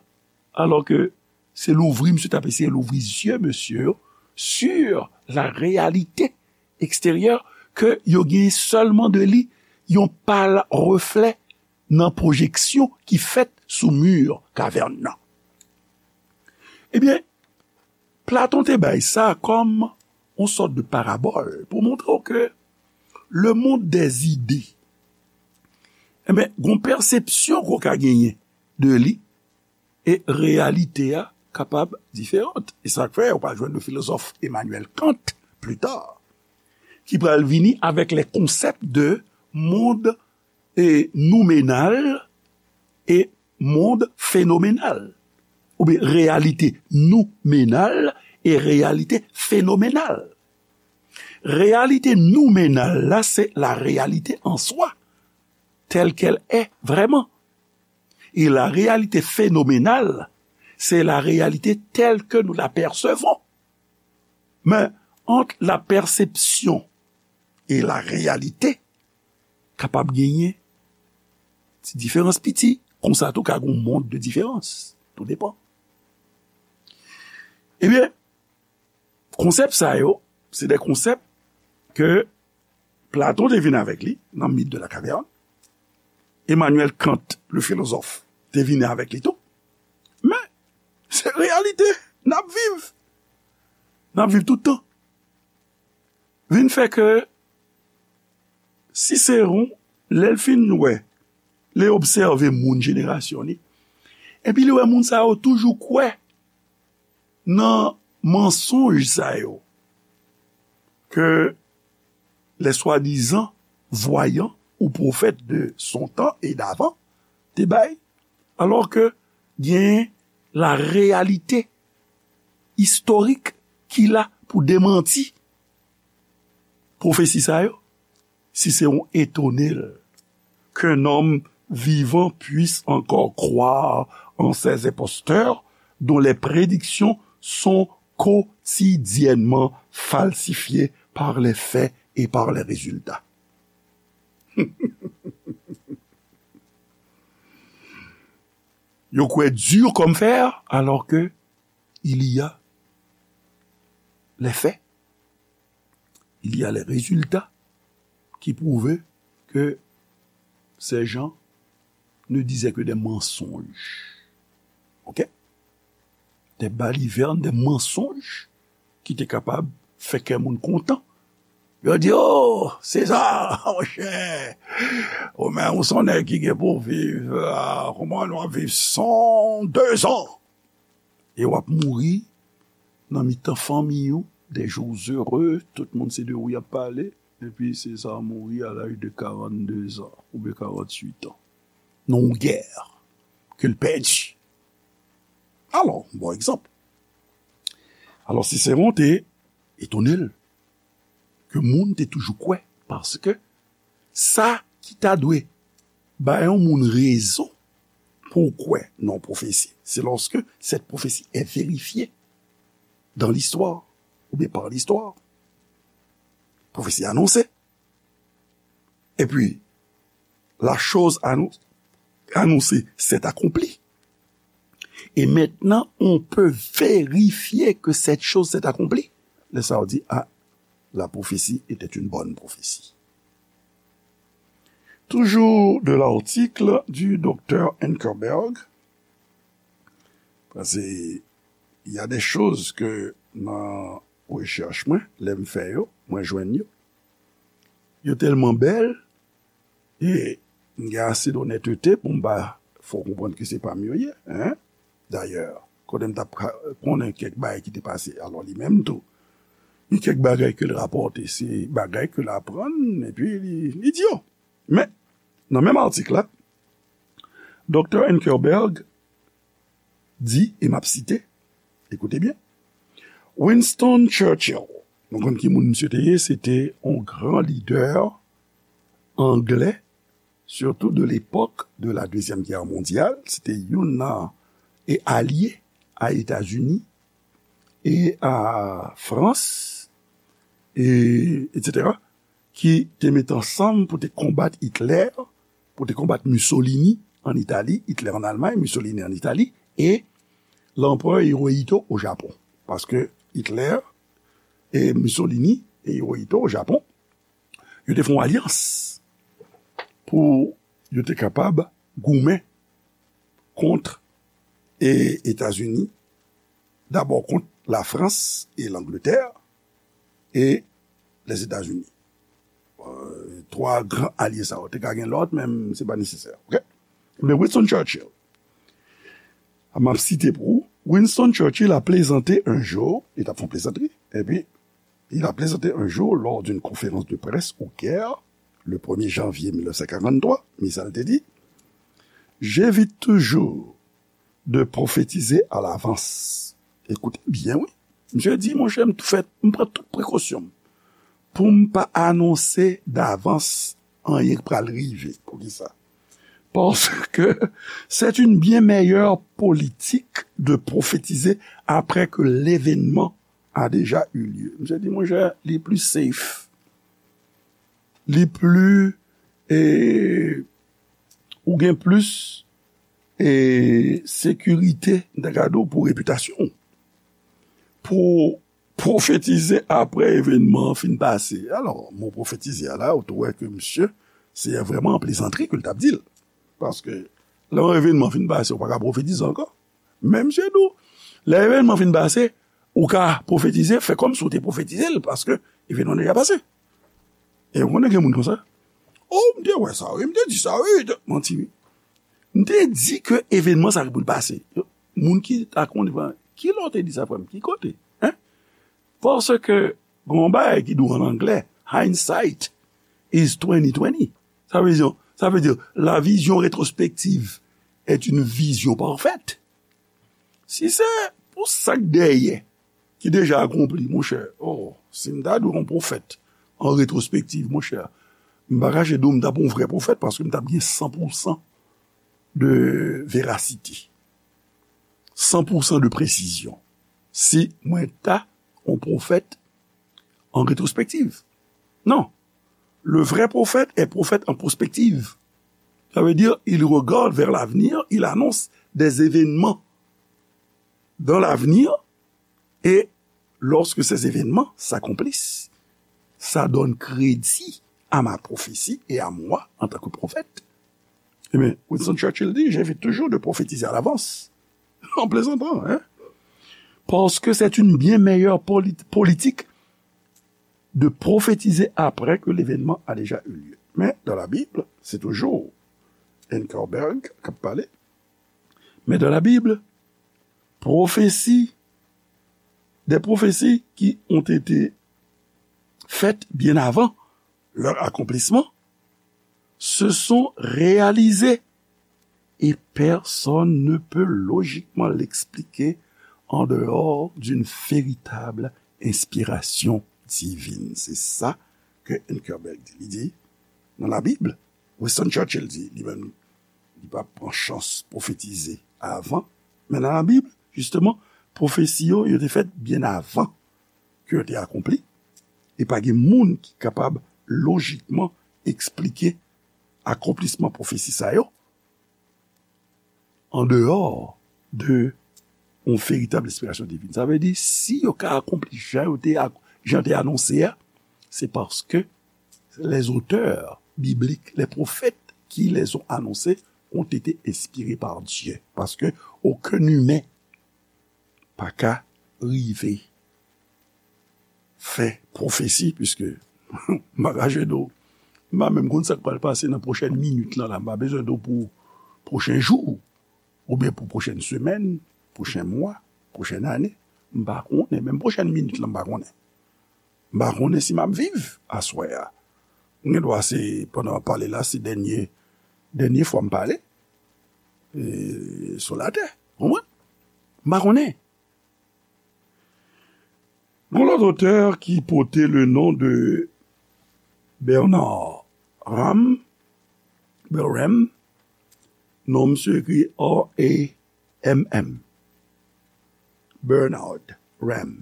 Alò ke se louvri, misye t ap eseye louvri zye mesye yo sur la réalité extérieure, ke yo gen sèlman de li yon pâle reflet nan pwojeksyon ki fèt sou mi kavèn nan. Ebyen, Platon te bay sa kòm yon sòt de parabòl pou montre w ke le monde des idées, ebyen, gon pèsepsyon ke w ka genyen de li, e reyalite a kapab diferan. E sa k fè ou pral jwenn le filozòf Emmanuel Kant pli ta, ki pral vini avèk les concepts de monde e noumenal e monde phénoménal, oubyen reyalite noumenal e reyalite fenomenal. Reyalite noumenal la, se la réalité en soi, telle qu'elle est vraiment. E la réalité phénoménale, c'est la réalité telle que nous la percevons. Men, ant la pèsepsyon e la reyalite, kapab genyen ti diferans piti. Konsa tou, ka gen yon mond de diferans. Tou depan. Ebyen, konsèp sa yo, se de konsèp ke Platon te vin avèk li nan mit de la kavèn. Emmanuel Kant, le philosophe, te vin avèk li tou. Men, se reyalite n ap viv. N ap viv tout tan. Vin fè ke Siseron, lè l fin wè, lè l obsève moun jenerasyon li, epi li wè moun sa yo toujou kwè nan mansonj sa yo ke les soi-disant voyants ou prophètes de son temps et d'avant te bay, alò ke gen la réalité historique ki la pou demanti pwofesi sa yo. Siseron etone l qu'un homme vivant puisse encore croire en ces imposteurs dont les prédictions sont quotidiennement falsifiées par les faits et par les résultats. Yo kwè dur comme fer, alors que il y a les faits, il y a les résultats qui prouvent que ces gens ne disaient que des mensonges. OK? Des balivernes, des mensonges ki te kapab fè kè moun kontan. Yo di, "Oh, Seza, monchè, ou menm ou se yon nèg ki gen pou viv, ah, kòman nou ap viv san de zan?" E w ap mouri nan mitan fanmi w, des jours heureux, tout moun se de ou y ap pale, epi Seza mouri à l'âge de quarante-deux ans oubyen quarante-huit ans. Nan yon gè ke l pèdi. Alò, bon egzanp. Alò, Siseron te etone l ke moun te toujou kwè, paske sa ki ta dwe bay yon moun rezon pou w kwè nan yon pwofesi, c'est lorsque cette prophétie est vérifiée dans l'histoire, ou bien par l'histoire. Pwofesi anonse. Epi, la chose annon- annoncée s'est accomplie. Et maintenant, on peut vérifier que cette chose s'est accomplie. Lè sa yo di, ah, la prophétie était une bonne prophétie. Toujours de l'article du docteur Ankerberg, paske y a des choses que nan rechèch mwen, lè m fè yo, mwen jwenn yo, yo tèlman bèl, e m gen ase donètete pou m pa fè w konprann ke se pa m yo ye, hein? Dayè, kote m t ap ka- konnen kèk bagay ki te pase, alò li menm tou, gen kèk bagay ke l rapòte, se bagay ke l aprann, epi li, li di yo. Men, nan menm atik la, Doktè Ankerberg di, e m ap site, ekoute byen, Winston Churchill, nou konn ki moun misye te ye, se te yon gran lidè anglè, surtout de l'époque de la Deuxième Guerre mondiale, se te youn nan e alye a Etazini e a Frans, e, et cetera, ki te met ansanm pou te konbat Hitler, pou te konbat Mussolini an Itali, Hitler an Almay, Mussolini an Itali, e Lanperè Hirohito o Japon. Paske Hitler e Mussolini e Hirohito o Japon, yo te fè yon alyans pou yo te kapab goumen kont e Etazini, dabò kont Lafrans e Langletè e Lèzetazini. Euh, twa gran alye sa yo. Te ka gen lòt, men se pa nesesè. Ok? Men Winston Churchill, m ap site pou ou, Winston Churchill a plaisanté un jour, li t ap fè yon plezantri, epi il a plaisanté un jour lors d'une conférence de presse au Caire, le premier janvier mille neuf cent quarante-trois, men sa l te di, j'évite toujours de prophétiser à l'avance. Ekoute byen, wi. Misye di, monchè, m tou fè, m pran tout prekosyon m pou m pa anonse davans anyen k pral rive. Poukisa? Parce que c'est une bien meilleure politique de prophétiser après que l'événement a déjà eu lieu. Misye di, monchè, li pli safe. Li pli, e, ou gen plis, e, sekirite, m ta ka di w, pou repitasyon w. Pou pwofetize apre evènman an fin pase. Alò, mo pwofetize a la, ou tou wè ke misye, se vrèman an plezantri ke l t ap di l. Paske, lè yon evènman fin pase, ou pa ka pwofetize ankò. Men misye di w, lè evènman fin pase, ou ka pwofetize, fè kòmsi w te pwofetize l, paske evènman deja pase. E ou konnen gen moun konsa. Oh, m te wè sa, wi, m te di sa, wi, m te manti, wi. M te di ke evènman sa ki pou l pase. Moun ki ta konnen, ki lè w te di sa, frè m? Ki kote? Hein? Paske, gen yon bagay ki di w an anglè, hindsight is twenty twenty. Sa vle di, sa vle di, la vision rétrospective est une vision parfaite. Si se pou sa k dèyè, ki deja akonpli, monchè, oh, si m ta dwe yon pwofèt an retwospektiv, monchè, m pa kache di w, m t ap yon vrè pwofèt paske m t ap gen san pou san de verasite, san pou san de presizyon. Si mwen ta yon pwofèt en rétrospective. Non. Le vrai prophète est prophète en prospective. Ça veut dire, il regarde vers l'avenir, il annonce des événements dans l'avenir, et lorsque ces événements s'accomplissent, ça donne crédit à ma prophétie et à moi en tant que prophète. Ebyen, Winston Churchill di, j'évite toujours de prophétiser à l'avance. En plaisantant, hein? Parce que c'est une bien meilleure poli- politique de prophétiser après que l'événement a déjà eu lieu. Mais dans la Bible, c'est toujours Ankerberg qui parle. Mais dans la Bible, prophétie, des prophéties qui ont été faites bien avant leur accomplissement se sont réalisées et personne ne peut logiquement l'expliquer en dehors d'une véritable inspiration divine. Se sa ke Ankerberg di. Li di, nan Labib, Winston Churchill di, li menm, li pa pran chans pwofetize avan. Men nan Labib, jisteman, pwofesi yo, yo te fèt byen avan ke yo te akonpli. E pa gen moun ki kapab lojikman eksplike akonplisman pwofesi sa yo an deyò de yon veritab enspirasyon divin. Sa vle di, si yo ka akonpli jan yo te, jan te anonse a, se paske les auteurs bibliques, les prophètes qui les ont annoncés ont été inspirés par Dieu. Paske okenn imen pa ka rive fè pwofesi, piske m pa ka jwenn ou. M pa menm konn sa k pral pase nan pwochèn minit lan la. M pa bezwen di w pou pwochen jou, oubyen pou pwochèn semèn, pwochen mwa, pwochèn ane. M pa konnen. Menm pwochèn minit lan, m pa konnen. M pa konnen si m ap viv aswè a. Mwen gen dwa se, pandan m ap pale la, se dènye, dènye fwa m pale, e, sou latè. Konprann? M pa konnen. Gon lòt otè ki pote le non de Bernard Ram, Berem, non misye ekri R A M M. Bernard Ram.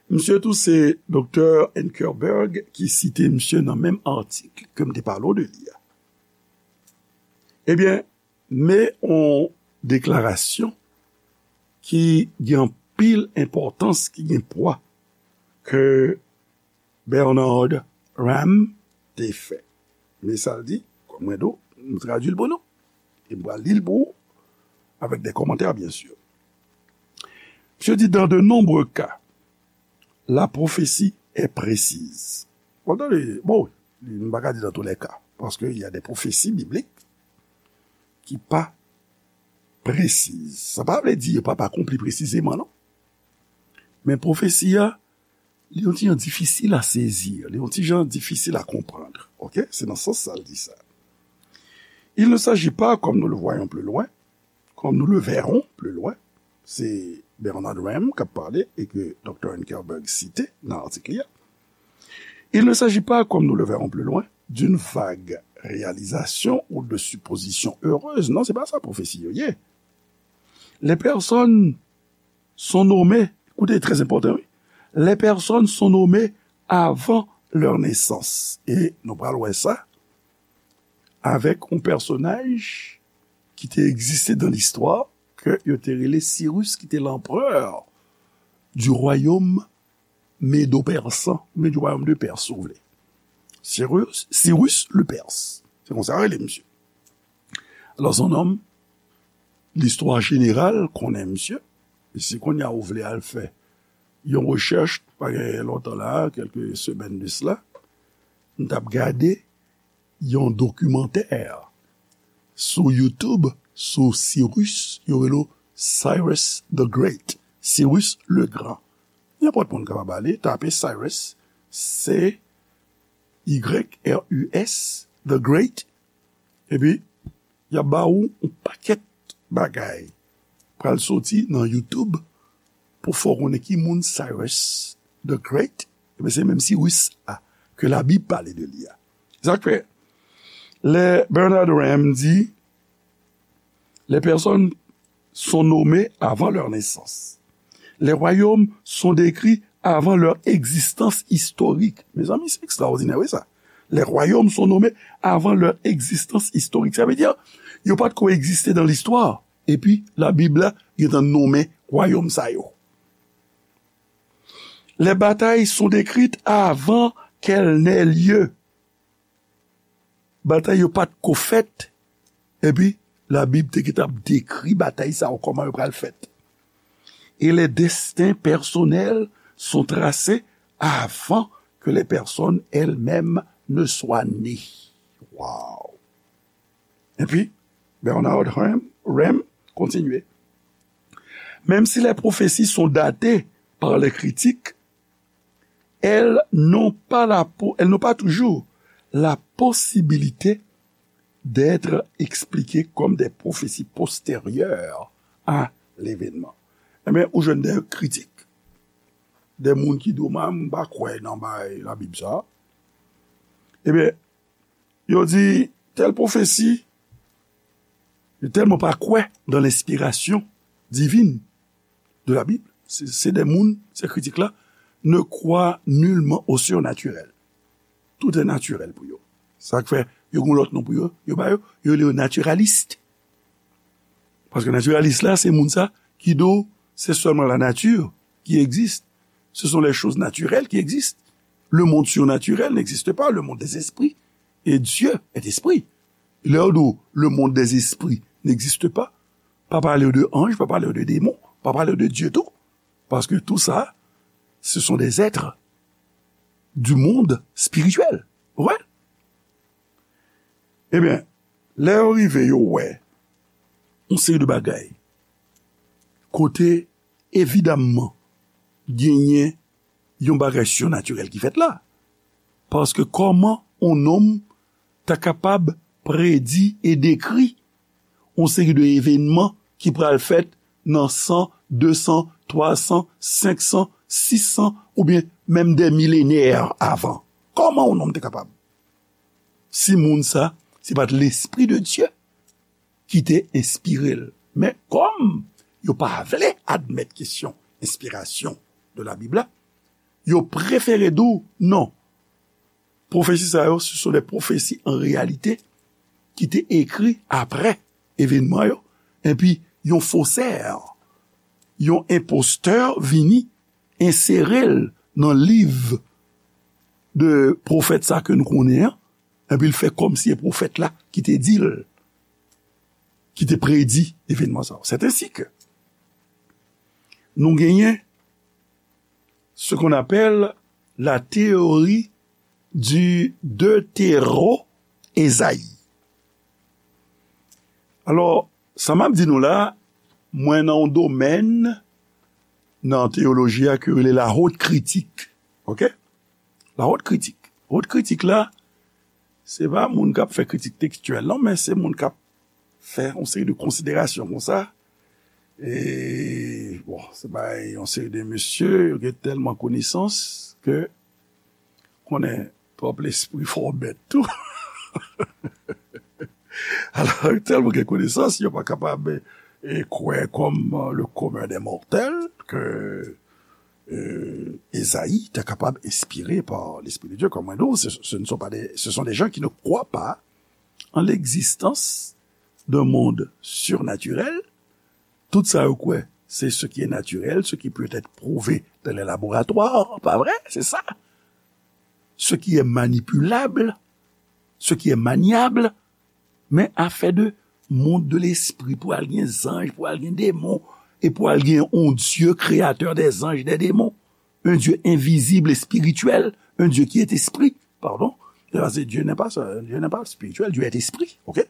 Misye tou se Doktè Ankerberg ki site misye nan menm atik ke m te pale w de li a. Ebyen, men yon deklarasyon ki gen anpil enpòtans, ki gen pwa, ke Bernard Ram te fè. Men sa l di, kòm mwen di w, M tradui l pou nou. E m pral li l pou ou, avec des commentaires, bien sûr. Misye di, dans de nombreux cas, la prophétie est précise. Bon, tande, bon, m pa ka di dans tous les cas, paske il y a des prophéties bibliques ki pa presiz. Sa pa vle di yo pa, pa akonpli presizeman, non. Men pwofesi a, li yon ti jan difisil a sezi, li yon ti jan difisil a konprann. Oke? Se nan sans sa l di sa. Il ne s'agit pas, comme nous le voyons plus loin, comme nous le verrons plus loin, se Bernard Ramm k ap pale e ke Doktè Ankerberg site nan atik li a. Il ne s'agit pas, comme nous le verrons plus loin, d'une vague réalisation ou de suppositions heureuses. Non, se pa sa pwofesi yo ye. Les personnes sont nommées, écoutez, très important, oui. Les personnes sont nommées avant leur naissance. E nou pral wè sa avèk yon pèsonaj ki te egziste dans l'histoire, ke yo te rele Cyrus, ki te l'empereur du royaume médo-persan, oubyen du royaume de Perse, si vous voulez. Cyrus, Cyrus le Perse. Se konsa yo rele misye. Alò, se yon nonm, listwa jeneral konnen misye. E si kounye a ou vle al fè yon rechèch, pa gen lontan la, kèlke semèn de sela, m t ap gade yon dokimantè sou YouTube, sou Cyrus, yo rele Cyrus the Great, Cyrus le Grand. Nenpòt moun kapab ale, tape Cyrus, C Y R U S, the Great, epi y ap ba ou yon pakèt bagay pral soti nan YouTube pou fè w konnen ki moun Cyrus the Great, ebyen se menm Cyrus a ke Labib pale de li a. Sa k fè, lè Bernard Ramm di, les personnes sont nommées avant leur naissance. Les royaumes sont décrits avant leur existence historique. Mezanmi, se ekstraòdinè, wi, sa. Les royaumes sont nommés avant leur existence historique. Sa vle di, yo pa t ko egziste dans l'histoire. Epi, Labib la gentan nonmen wayòm sa yo. Les batailles sont décrites avant qu'elles n'aient lieu. Batay yo pa t ko fèt. Epi, Labib te gentan ap dekri batay sa yo, kòman yo pral fèt. Et les destins personnels sont tracés avant que les personnes elles-mêmes ne soient nées. Wow! Epi, Bernard Ramm, Ramm kontinye. Même si les prophéties sont datées par les critiques, elles n'ont pas la po-, elles n'ont pas toujours la possibilité d'être expliquées comme des prophéties postérieures à l'événement. Ebyen, ou jwenn de kritik, de moun ki di w, "M pa kwè nan bay Labib sa." Ebyen, yo di, tèl pwofesi, yo tèlman pa kwè dans l'inspiration divine de la Bible, se, se de moun, se kritik la, ne croient nullement au surnaturel. Tout est naturel pou yo. Sa k fè, yo gen lòt non pou yo, yo ba yo, yo rele yo natiralis. Paske natiralis la, se moun sa ki di w, c'est seulement la nature qui existe. Ce sont les choses naturelles qui existent. Le monde surnaturel n'existe pas, le monde des esprits. Et Dieu est esprit. Lè yo di w, le monde des esprits n'existe pas, pa pale w de anj, pa pale w de demon, pa pale w de Dye tou. Paske tou sa, ce sont des êtres du monde spirituel. Ou konprann? Ebyen, lè yo rive, yo wè yon seri de bagay kote, evidamman, genyen yon bagay sinatirèl ki fèt la. Paske kòman yon nonm ta kapab predi e dekri yon seri de evènman ki pral fèt nan san, de san, twa san, senk san, sis san, oubyen menm dè milenè avan? Kòman yon nonm te kapab? Si moun sa, se pa t Lespri de Dye ki te enspire l. Men kòm yo pa vle admèt kesyon enspirasyon de la Bib la, yo prefere di w non. Pwofesi sa yo, ce sont des prophéties en réalité ki te ekri apre evènman yo, epi yon fosè, yon enpostè vini ensere l nan liv de pwofèt sa ke nou konnen an, Epi l fè kòmsi e pwofèt la ki te di l, ki te predi evènman sa yo. C'est ainsi que nou genyen ce qu'on appelle la théorie du deutéro-Esaïe. Alò, sa m ap di nou la, mwen nan yon domèn nan teyoloji a ke yo rele la haute critique. Oke? La haute critique. Haute critique la, se pa moun k ap fè kritik tekstyèl, non, men se moun k ap fè yon seri de konsiderasyon konsa. E, bon, se pa yon seri de mesye, yo gen tèlman konesans ke konnen twòp lespri fè w bèt tou. Alò, tèlman gen konesans, yo pa kapab e, kwè kòm e, le commun des mortels ke e, Esaïe te kapab enspire pa Lespri de Dye. Kòm mwen di w, ce, ce ne sont pas des, ce sont des gens qui ne croient pas en l'existence d'un monde surnaturel. Tout sa yo kwè, c'est ce qui est naturel, ce qui peut être prouvé dans les laboratoires, pa vre? Se sa. Ce qui est manipulable, ce qui est maniable, men afè de monde de l'esprit, pou al gen zanj, pou al gen demon, e pou al gen yon Dieu créateur des anges et des démons, un Dieu invisible et spirituel, un Dieu qui est esprit, pardon. Parce que Dieu n'est pas, Dieu n'est pas spirituel, Dieu est esprit, ok?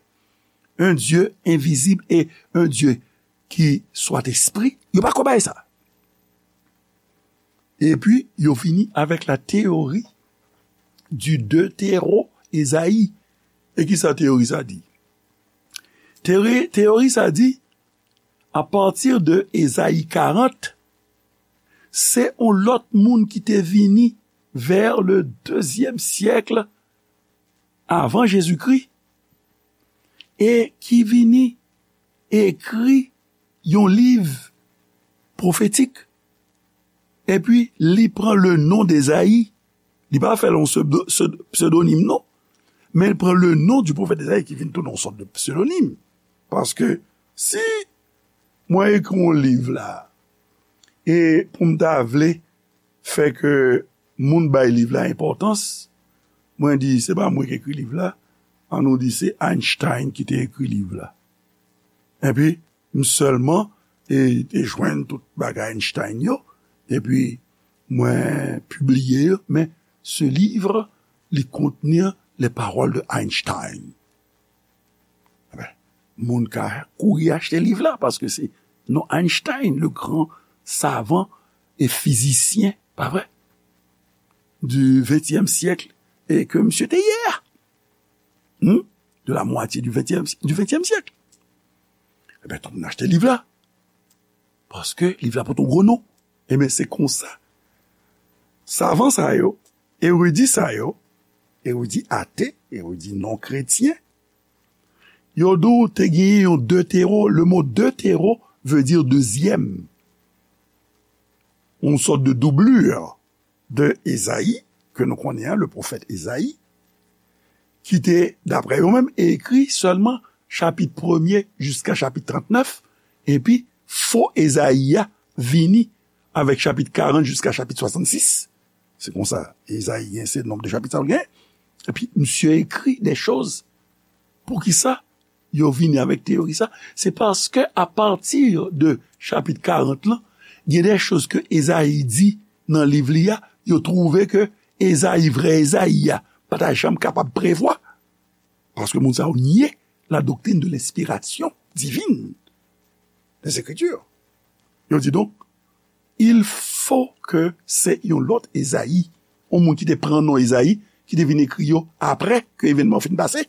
Un Dieu invisible et un Dieu qui soit esprit, yo pa kwè bagay sa. Epi, yo vini avèk la théorie du deutéro-Esaïe. E ki sa teyori sa di? Teyori, teyori sa di, a pati de Ezayi karant, se yon lòt moun ki te vini vers le deuxième siècle avant Jésus-Christ, e ki vini ekri yon liv pwofetik, epi li pran le non d'Ezayi. Li pa fè l yon pseudo-, pseudo-, psedonim, non. Men li pran le non du pwofèt Ezayi ki vin tounen yon sòt de psedonim. Paske si mwen ekri yon liv la, e pou m ta vle fè ke moun bay liv la enpòtans, mwen di, se pa mwen ki ekri liv la, an nou di se Einstein ki te ekri liv la. Epi, m sèlman e, te jwenn tout bagay Einstein yo, epi mwen pibliye yo, men ce livre, li contenir les paroles de Einstein. Eben, moun ka kouri achte liv la, paske se non Einstein, le grand savant et physicien, pa vre? Du vingtième siècle, e ke misye te ye a. Hmm? De la moitié du vingtième, du vingtième siècle. Eben, tout moun achte liv la. Paske liv la pote yon gwo non. Eben, se konsa. Savan sa yo, eridi sa yo, eridi ate, eridi non kretyen, yo di w te genyen yon deutéro, le mot deutéro veut dire deuxième. Yon sòt de doublure de Ezayi, ke nou konnen an, le pwofèt Ezayi, ki te, daprè yo menm, ekri sèlman chapit premye jiska chapit trantnèf, epi fo Ezayi a vini avèk chapit karant jiska chapit swasannsis. Se konsa, Ezayi gen se nonb de chapit sa l gen. Epi, misye ekri de choz. Poukisa yo vini avèk teyori sa? Se paske apati de chapit karant lan, gen de choz ke Ezayi di nan liv li a, yo twouve ke Ezayi, vrè Ezayi a, pa ta janm kapab prevwa. Paske moun sa yo nye la doctrine de l'inspiration divine des Écritures. Yo di donk, il faut que se yon lòt Ezayi, yon moun ki te pran non Ezayi, ki te vin ekri yo apre ke evènman yo fin pase,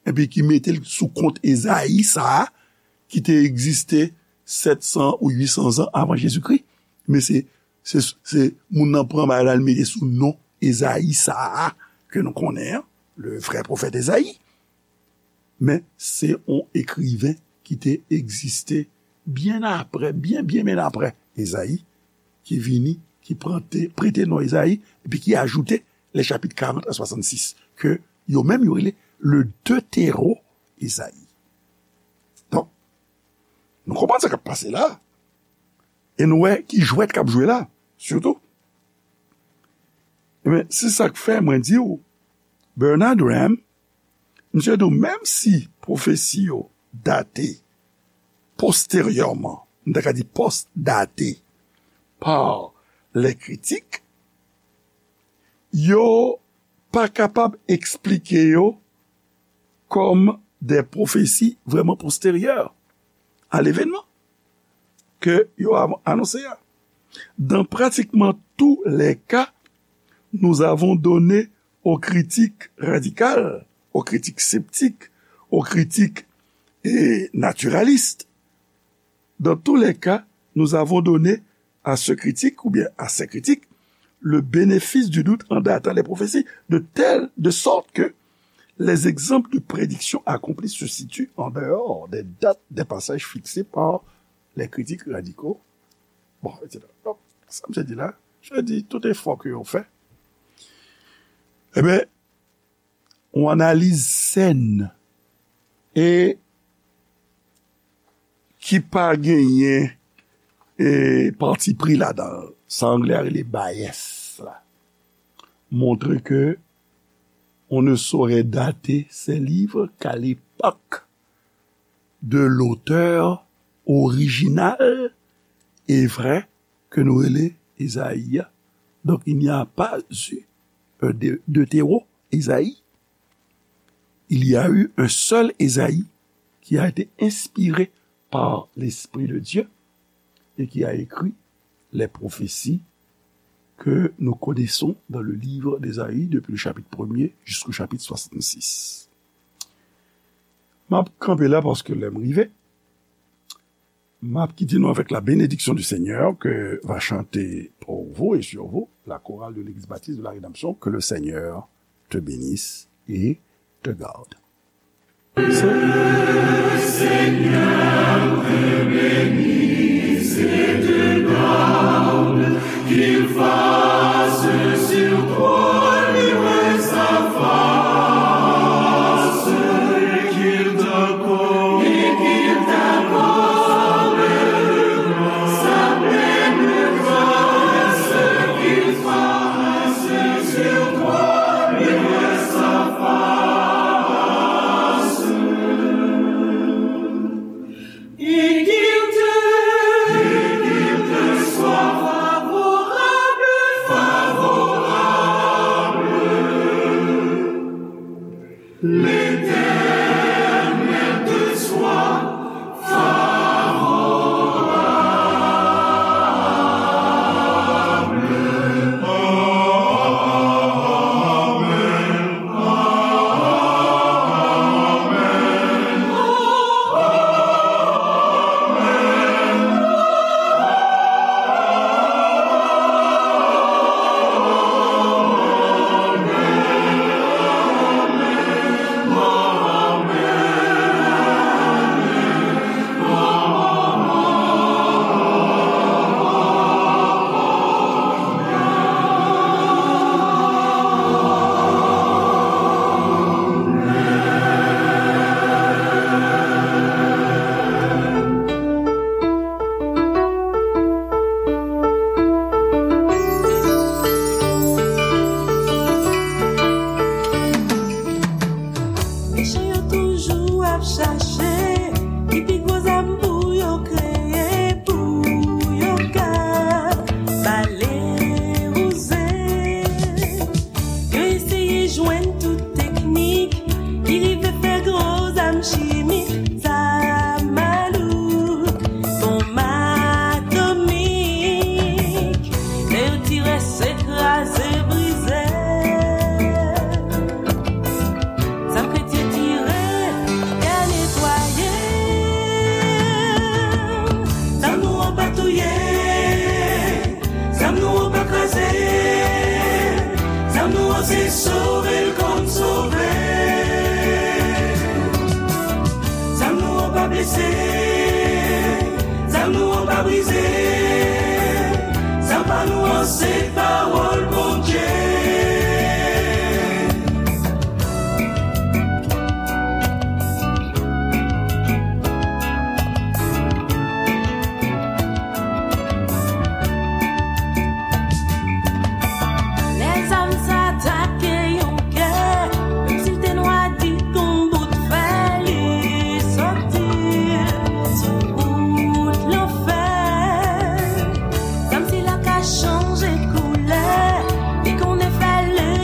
epi ki mete l sou kont Ezayi sa a, ki te egziste sèt san ou uit san zan avan Jezikri. Men se, se, se moun nan pran bagay la, l mete sou non Ezayi sa a, ke nou konnen an, le vrè pwofèt Ezayi. Men se yon ekriven ki te egziste byen apre, byen, byen, byen apre Ezayi, ki vini, ki prante, prete non Ezayi, epi ki ajoute les chapitres quarante à soixante-six, ke yo menm yo rele le Deutéro-Ezayi. Donk, nou konprann sa k ap pase la, e nou wè ki jwèt k ap jwe la, sitou. Ebyen, se sa k fè mwen di w, Bernard Graham, Misye di w, menm si pwofesi yo date posteryèman, m ta ka di post-date, par les critiques, yo pa kapab eksplike yo kòm de pwofesi vrèman posteryè a levenman ke yo a- anonse a. Dans pratiquement tous les cas, nous avons donné aux critiques radicales, aux critiques sceptiques, aux critiques, eh, naturalistes, dans tous les cas, nous avons donné à ce critique ou bien à ces critiques le bénéfice du doute en datant les prophéties, de telle, de sorte que les exemples de prédiction accomplie se situent en dehors des dates des passages fixés par les critiques radicaux. Bon, et cetera. Donk, sa m te di la, je dis tout effort ke yo fè. Ebyen, yon analiz sèn e ki pa genyen, e, pati pri ladan l. Sa anglè a rele bias la. Montre ke on ne saurait dater ces livres qu'à l'époque de l'auteur original et vrai ke nou rele Ezayi a. Donc, il n'y a pas eu un de, de Théo Ezayi. Il y a eu un seul Ezayi qui a été inspiré par l'Esprit de Dieu et qui a écrit les prophéties que nous connaissons dans le livre d'Ésaïe depuis le chapitre premier jusqu'au chapitre soixante-six. M ap kanpe la paske lè m rive. M ap kite nou avec la bénédiction du Seigneur que va chanter pour vous et sur vous la chorale de l'Église Baptiste de la Rédemption. Que le Seigneur te bénisse et te garde. Et qu'il te, et qu'il te soit favorable, favorable. L'Éternel te soit favorable. Mechan yo toujou ap chache ki pi gwo zam pou yo kreye, pou yo ka bale wouze. Yo eseye jwenn tout teknik ki rive fè gwo zam chimik, zam malouk, bonm atomik. Lè yo tire, se kraze, brize. Zam kretyen tire, te netwaye. Zam nou an pa touye. Zam nou an pa kraze. Zam nou an se sove l konn sove. Zam nou an pa blese. Zam nou an pa brize. Zam pa nou an se pawòl Bondye.